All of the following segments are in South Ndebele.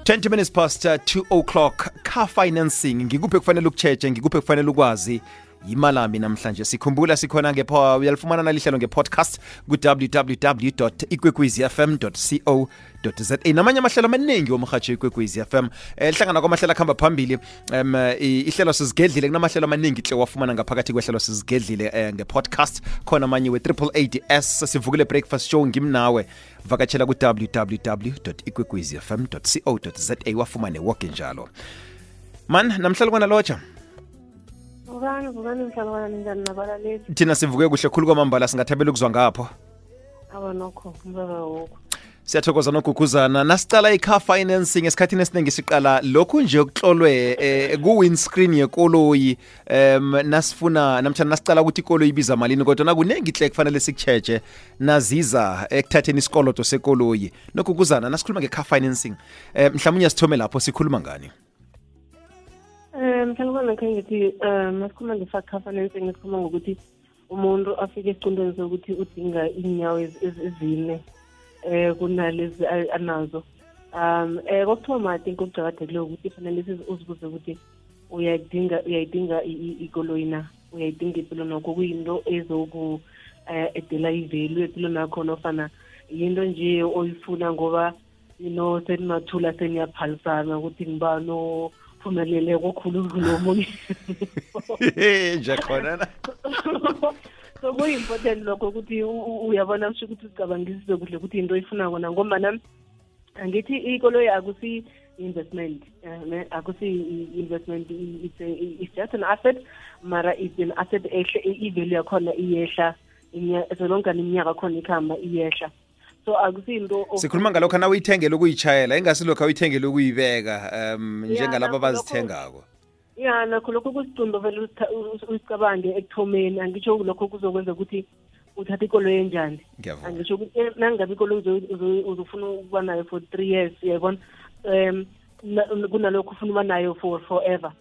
20 minutes past 2 o'clock. Car financing ngikuphi kufanele ukucheche, ngikuphi kufanele ukwazi. Yimalami namhlanje sikhumbula sikhona uyalifumana nalihlelo ngepodcast ku www.ikwekwezfm.co.za namanye amahlelo amaningi womhatsho Ikwekwezi FM lihlangana kwamahlelo akhamba phambili ihlelo sizigedlile kunamahlelo amaningi hle wafumana ngaphakathi kwehlelo sizigedlile ngepodcast khona manye we-AAAS sivukile breakfast show ngimnawe vakatshela ku www.ikwekwezfm.co.za wafumane woke njalo man namhlalo kwana locha Vukani mhlabana njani nabalaleli. Thina sivuke kuhle khulu kwamambala singathabela ukuzwa ngapho. Nokho mbaba wokho. Siyathokoza nokuguguzana nasicala i-car financing esikhathini esiningi siqala lokhu nje okuhlolwe ku-windscreen yekoloyi nasifuna namtjana nasicala ukuthi ikoloyi ibiza malini kodwa nakunengi hle kufanele sikucheche naziza ekuthatheni isikolodo sekoloyi nokuguguzana nasikhuluma nge-car financing mhlawumnye sithome lapho sikhuluma ngani. Mhlawumbe ngithi masikhuluma nge-car financing sikhuluma ngokuthi umuntu afike esiqondweni sokuthi udinga inyawo ezine kunalezi anazo. Kokuthoma I think okuqakathekile ukuthi fanele uzibuze ukuthi uyayidinga ikoloyi na, uyayidinga impilo nakho kuyinto ezoku edela ivelu empilo nakho nofana yinto nje oyifuna ngoba senimathula seniyaphalisana ukuthi ngibano phumelele kokhulu kulomunye nje khona so kuyi-important lokho ukuthi uyabona kusho ukuthi uzicabangisise kuhle ukuthi into oyifuna kona ngoba angithi ikoloyi akusi-investment akusi-investment it's just an asset mara it's an asset ehle ivelu yakhona iyehla solongani iminyaka khona ikhamba iyehla so akusinto sikhuluma ngalokho na uyithengele ukuyitshayela ingasilokho uyithengele ukuyibeka njengalabo abazithengako nakho lokho kusicundo vele usicabange ekuthomeni angitsho lokho kuzokwenza ukuthi uthathe ikoloyi enjani angitsho ukuthi nangabe ikoloyi uzofuna ukuba nayo for 3 years uyayibona kunalokho ufuna ukuba nayo for forever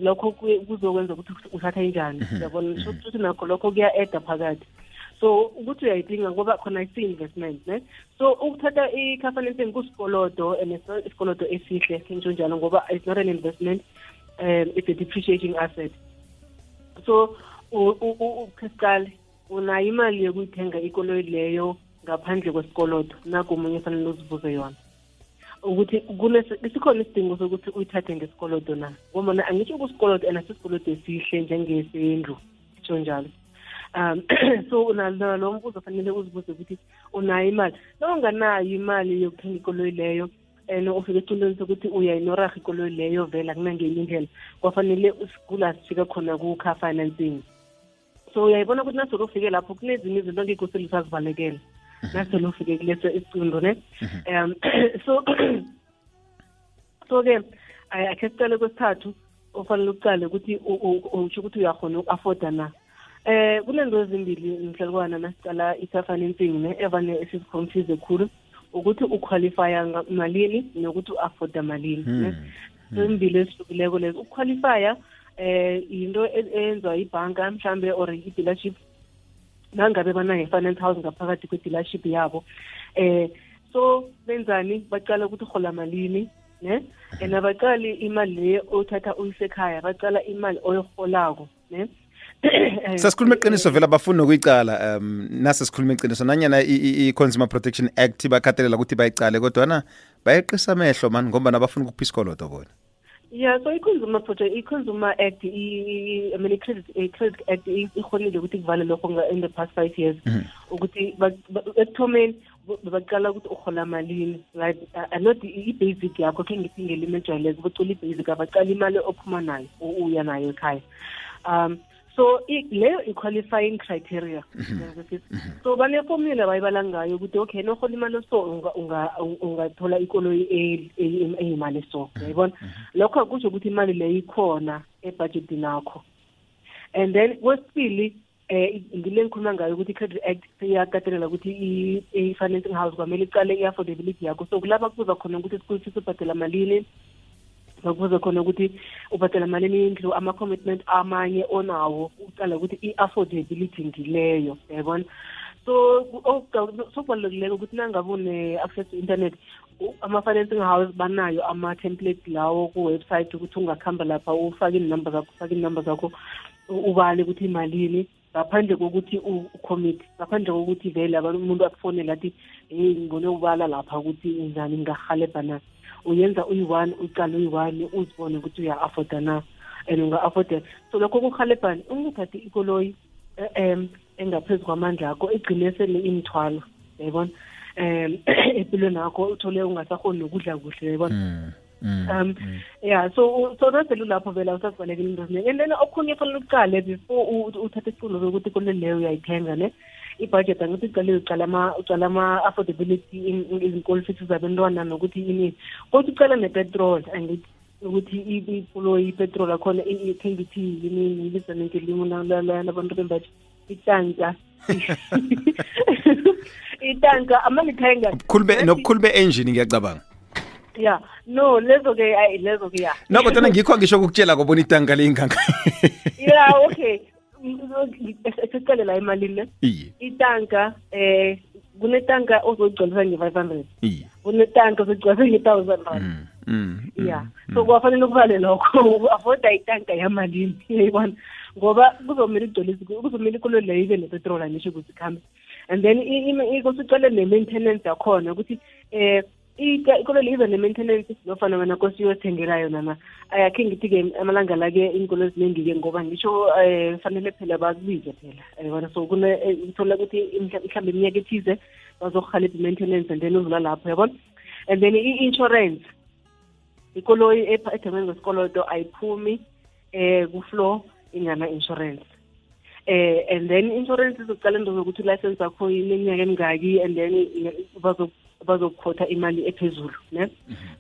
lokho kuzokwenza ukuthi uthathe enjani uyabona ukuthi nakho lokho kuya-eda phakathi so ukuthi uyayidinga ngoba khona isi-investment ne so ukuthatha i-car financing kusikolodo and isikolodo esihle ngisho njalo ngoba it's not an investment it's a depreciating asset so ukhesiqale unayo imali yokuyithenga ikoloyi leyo ngaphandle kwesikolodo nakumunye fanele uzibuze yona ukuthi sikhona isidingo sokuthi uyithathe ngesikolodo na ngoba angitsho kusikolodo and asisikolodo esihle njengesendlu ngisho njalo so unalo mbuzo fanele uzibuze ukuthi unayo imali unganayo imali yokuthenga ikoloyi leyo and ufike eqondweni sokuthi uyayinoraha ikoloyi leyo vela kunangenye indlela kwafanele usigula sifika khona ku-car financing so uyayibona ukuthi nasolo ufike lapho kunezinye izinto ngekho selusazibalekela nasolo ufike kuleso isicundo ne so-ke akhe sicale kwesithathu ufanele ucale ukuthi usho ukuthi uyakhona uku-afforda na kunento ezimbili mhlalukwana nasicala i-car financing ne evane esiziconfuse khulu ukuthi uqualifya malini nokuthi u-afforda malini ne zimbili esihlukileko lezo uqualifya into eyenziwa ibhanka mhlambe or i-dealership nangabe banayo i-finance house ngaphakathi kwe-dealership yabo so benzani bacala ukuthi uhola malini ne and abacali imali leyo othatha uyisekhaya bacala imali oyiholako ne sasikhuluma iqiniso vela bafuna ukuyicala nase sikhuluma iqiniso nanyana i-Consumer Protection Act bakhathalela ukuthi bayicale kodwa bayeqisa amehlo man ngoba nabafuna ukupha isikolodo bona so i-Consumer Act i-Credit Act ikhonile ukuthi kuvale lokho in the past 5 years ukuthi ekuthomeni baqala ukuthi uhola malini right not i-basic yakho khe ngithi ngelimi ejwayeleke bacula i-basic abacala imali ophuma nayo uya nayo ekhaya so leyo i-qualifying criteria so baneformula bayibala ngayo ukuthi okay nohola imali so ungathola ikoloyi eyimali so uyayibona lokho akusho ukuthi imali leyo ikhona ebudgetini yakho and then kwesibili ngile ngikhuluma ngayo ukuthi i-Credit Act iyakatelela ukuthi i-financing house kwamele icale i-affordability yakho so kulapha kuza khona ukuthi sikufisa ubhadela malini bakubuza khona ukuthi ubhadela malini indlu ama-commitment amanye onawo uqala ukuthi i-affordability ngileyo yayibona so kubalulekile ukuthi nangabe une-access to internet ama-financing house banayo ama-template lawo ku-website ukuthi ungakhamba lapha ufake inumber zakho ubale ukuthi imalini ngaphandle kokuthi ucommit, ngaphandle kokuthi vele umuntu akufonela athi ngibone ubala lapha ukuthi njani ngingahalebha na. Uyenza uyi-1 uqala uyi-1 uzibone ukuthi uya-afforda na and unga-afforda. So lokho kuhalebhani ungathathi ikoloyi engaphezu kwamandla akho igcine sele imithwalo, yayibona, empilweni yakho uthole ungasakhoni nokudla kuhle, yayibona. Yeah, so nasele lapho vela usazibalekela into eziningi. And then okhunye fanele uqale before uthathe isiqulo sokuthi ikoloyi leyo uyayithenga ne i-budget angithi uqala ama-affordability izinkolo futhi zabantwana nokuthi ini kodwa uqala nepetrol angithi ukuthi ikoloyi ipetrol akhona ithenga ithi yini ibiza ngelimo labantu bembathi itanka itanka amalithenga nokukhulu be-engine ngiyacabanga. Yeah, no, lezo-ke ya. No, kodwa ngikho ngisho ukukutshela kobona itanka leyinganga. Yeah, okay. Esicale la imalini le. Itanka kunetanka ozogcwalisa nge-500. Kunetanka ozogcwalisa nge-1,000 rand. Yeah. So kwafanele ukubale lokho avoida itanka yamalini, yayibona. Ngoba kuzomela ikoloyi leyo ibe nepetrol anisho ukuthi ikhambe. And then ikusucale ne-maintenance yakhona ukuthi ikoloyi iza ne-maintenance nofana wena kosi uyothengela yona na. Ayakhe ngithi-ke amalanga la-ke inkolo eziningi-ke ngoba ngisho fanele phela bakubize phela, yabona. So uthola ukuthi mhlawumbe iminyaka ethize bazokuhalebha i-maintenance and then udlula lapho, yabona. And then i-insurance, ikoloyi ethengwe ngesikoloto ayiphumi ku-floor ingana-insurance. And then insurance izoqala into zokuthi license yakho ineminyaka emingaki and then bazokhotha imali ephezulu, ne.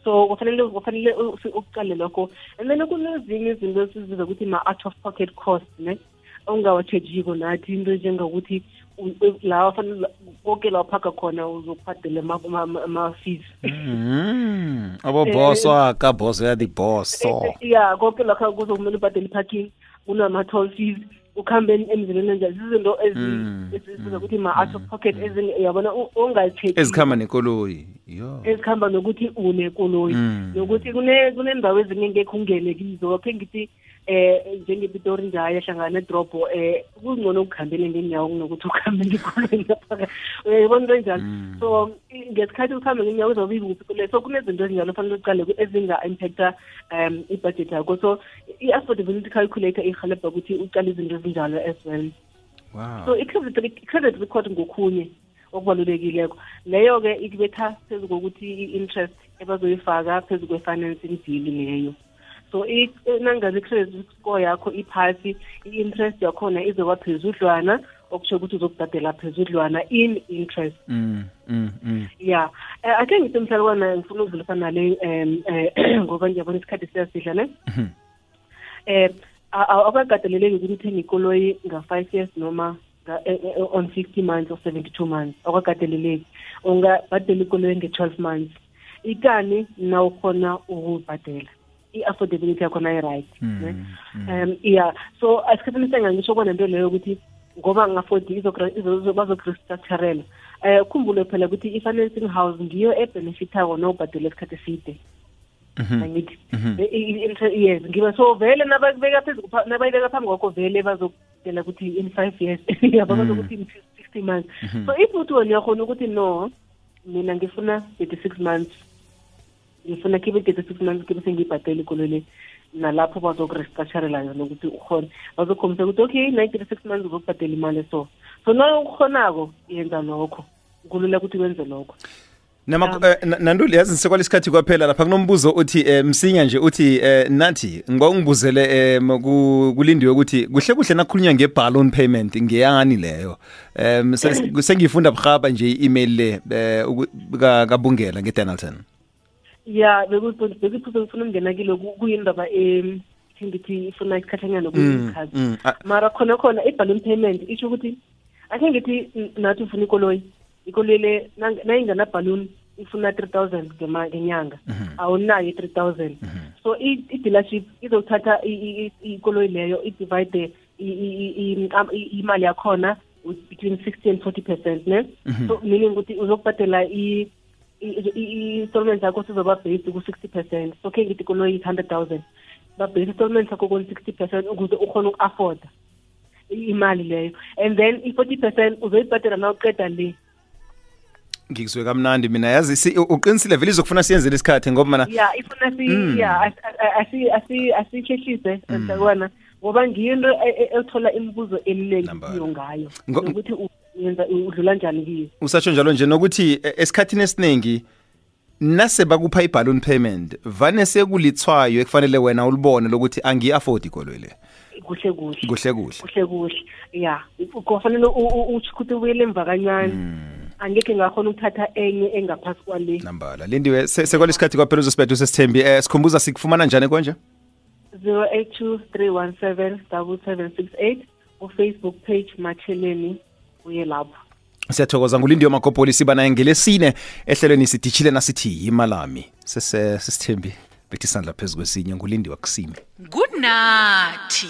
So kufanele uqale lokho. And then kunezinye izinto esizibiza ukuthi ma-out of pocket cost, ne, ongawatshejiko nathi into njengokuthi lawa fanele konke la uphaka khona uzokubhadela ama-fees. Aboboss waka boss ya di-boss. Yeah, konke lakho kuzokumele ubhadele i-parking, kunama-toll fees, ukhambe emzileni njalo. Izinto esizibiza ukuthi ma-out of pocket yabona ongayicheck ezikhamba nekoloyi. Ezikhamba nokuthi unekoloyi nokuthi kunendawo ezinye ngeke ungene kizo. Wakhe ngithi njengePitori nje ayahlangana nedropo kungcono ukukhambele ngenyawo kunokuthi ukhambe ngekoloyi lapha, uyayibona into enjalo. So ngesikhathi ukhambe ngenyawo uzobiza ukuphi. So kunezinto ezinjalo fanele uqale ezinga-impacta i-budget yakho. So i-affordability calculator ihalebha ukuthi uqale izinto ezinjalo as well. Wow. So i-credit record ngokhunye okubalulekileko leyo-ke ikubetha phezu kokuthi i-interest ebazoyifaka phezu kwe-financing deal leyo. So nangazi i-credit score yakho iphasi, i-interest yakhona izoba phezudlwana, okusho ukuthi uzokubhadela phezudlwana in interest. Yeah. Ake ngithi mhlalukwana ngifuna ukudlulisana nale ngoba ngiyabona isikhathi siyasidla ne. Awukagadeleleki ukuthi uthenge ikoloyi nga-5 years noma on 50 months or 72 months. Awukagadeleleki. Ungabhadela ikoloyi nge-12 months. Ikani na ukhona ukubhadela. I-affordability yakhona i-right. Yeah. So asikhathini sengangisho kona nto leyo ukuthi ngoba ngafodi bazokurestructurela. Khumbule phela ukuthi i-financing house ngiyo ebenefitako nobhadela isikhathi eside. Angithi yes ngiba so vele nabakubeka phambi kwakho vele bazokutshela ukuthi in 5 years bazokuthi in 60 months. So if uthi wena uyakhona ukuthi no mina ngifuna 36 months, ngifuna kibe 36 months kibe sengibhadela ikoloyi nalapho bazokurestructurela yona ukuthi ukhona bazokhombisa ukuthi okay 96 months uzokubhadela imali so nawe ukhonako yenza lokho kulula ukuthi wenze lokho. Nanduli yazi sekwala isikhathi kwaphela lapha kunombuzo uthi msinya nje uthi nathi ngiba ungibuzele kulindiwe ukuthi kuhle nakhulunywa ngeballoon payment ngeyani leyo. Sengifunda bkhaba nje i-email le kabungela ngeDonaldson. Yeah, bekuphuza ngifuna ukungena kilo kuyindaba ngithi ifuna isikhathanyana kuyikhazi. Mara khona i-balloon payment isho ukuthi ake ngithi nathi ufuna ikoloyi le nayingana balloon ifuna 3,000 ngenyanga awunayo 3,000. So i-dealership izothatha ikoloyi leyo i-divide imali yakhona between 60 and 40%, ne. So meaning ukuthi uzokubhadela i-installment yakho sizoba based ku-60%. So ke ngithi ikoloyi 100,000 ba-base installment yakho ku-60% ukuze ukhona uku-afforda imali leyo, and then i-40% uzoyibhadela na uqeda le. Ngikuzwe kamnandi mina yazi uqinisile vele izokufuna siyenzele isikhathi ngoba mana ifuna asihlehlise mntakwana ngoba ngiyinto ethola imibuzo eminingi kiyo ngayo ukuthi uyenza udlula njani kiyo. Usatsho njalo nje nokuthi esikhathini esiningi nase bakupha i-balloon payment vane sekulithwayo ekufanele wena ulibone lokuthi angi-afford ikoloyi le. Kuhle ya kufanele ukuthi ubuyele emva kancane. Angeke ngakhona ukuthatha enye engaphasi kwale nambala. Lindiwe sekwalesikhathi kwaphela uzosibetha usesithembi sikhumbuza sikufumana njani konje? 0823177768 ku-Facebook page Matsheleni uye lapho. Siyathokoza nguLindiwe Makopoli siba naye ngelesine ehlelweni sidishile nasithi imalami sesithembi bethi sandla phezulu kwesinye nguLindiwe Kusime. Good night.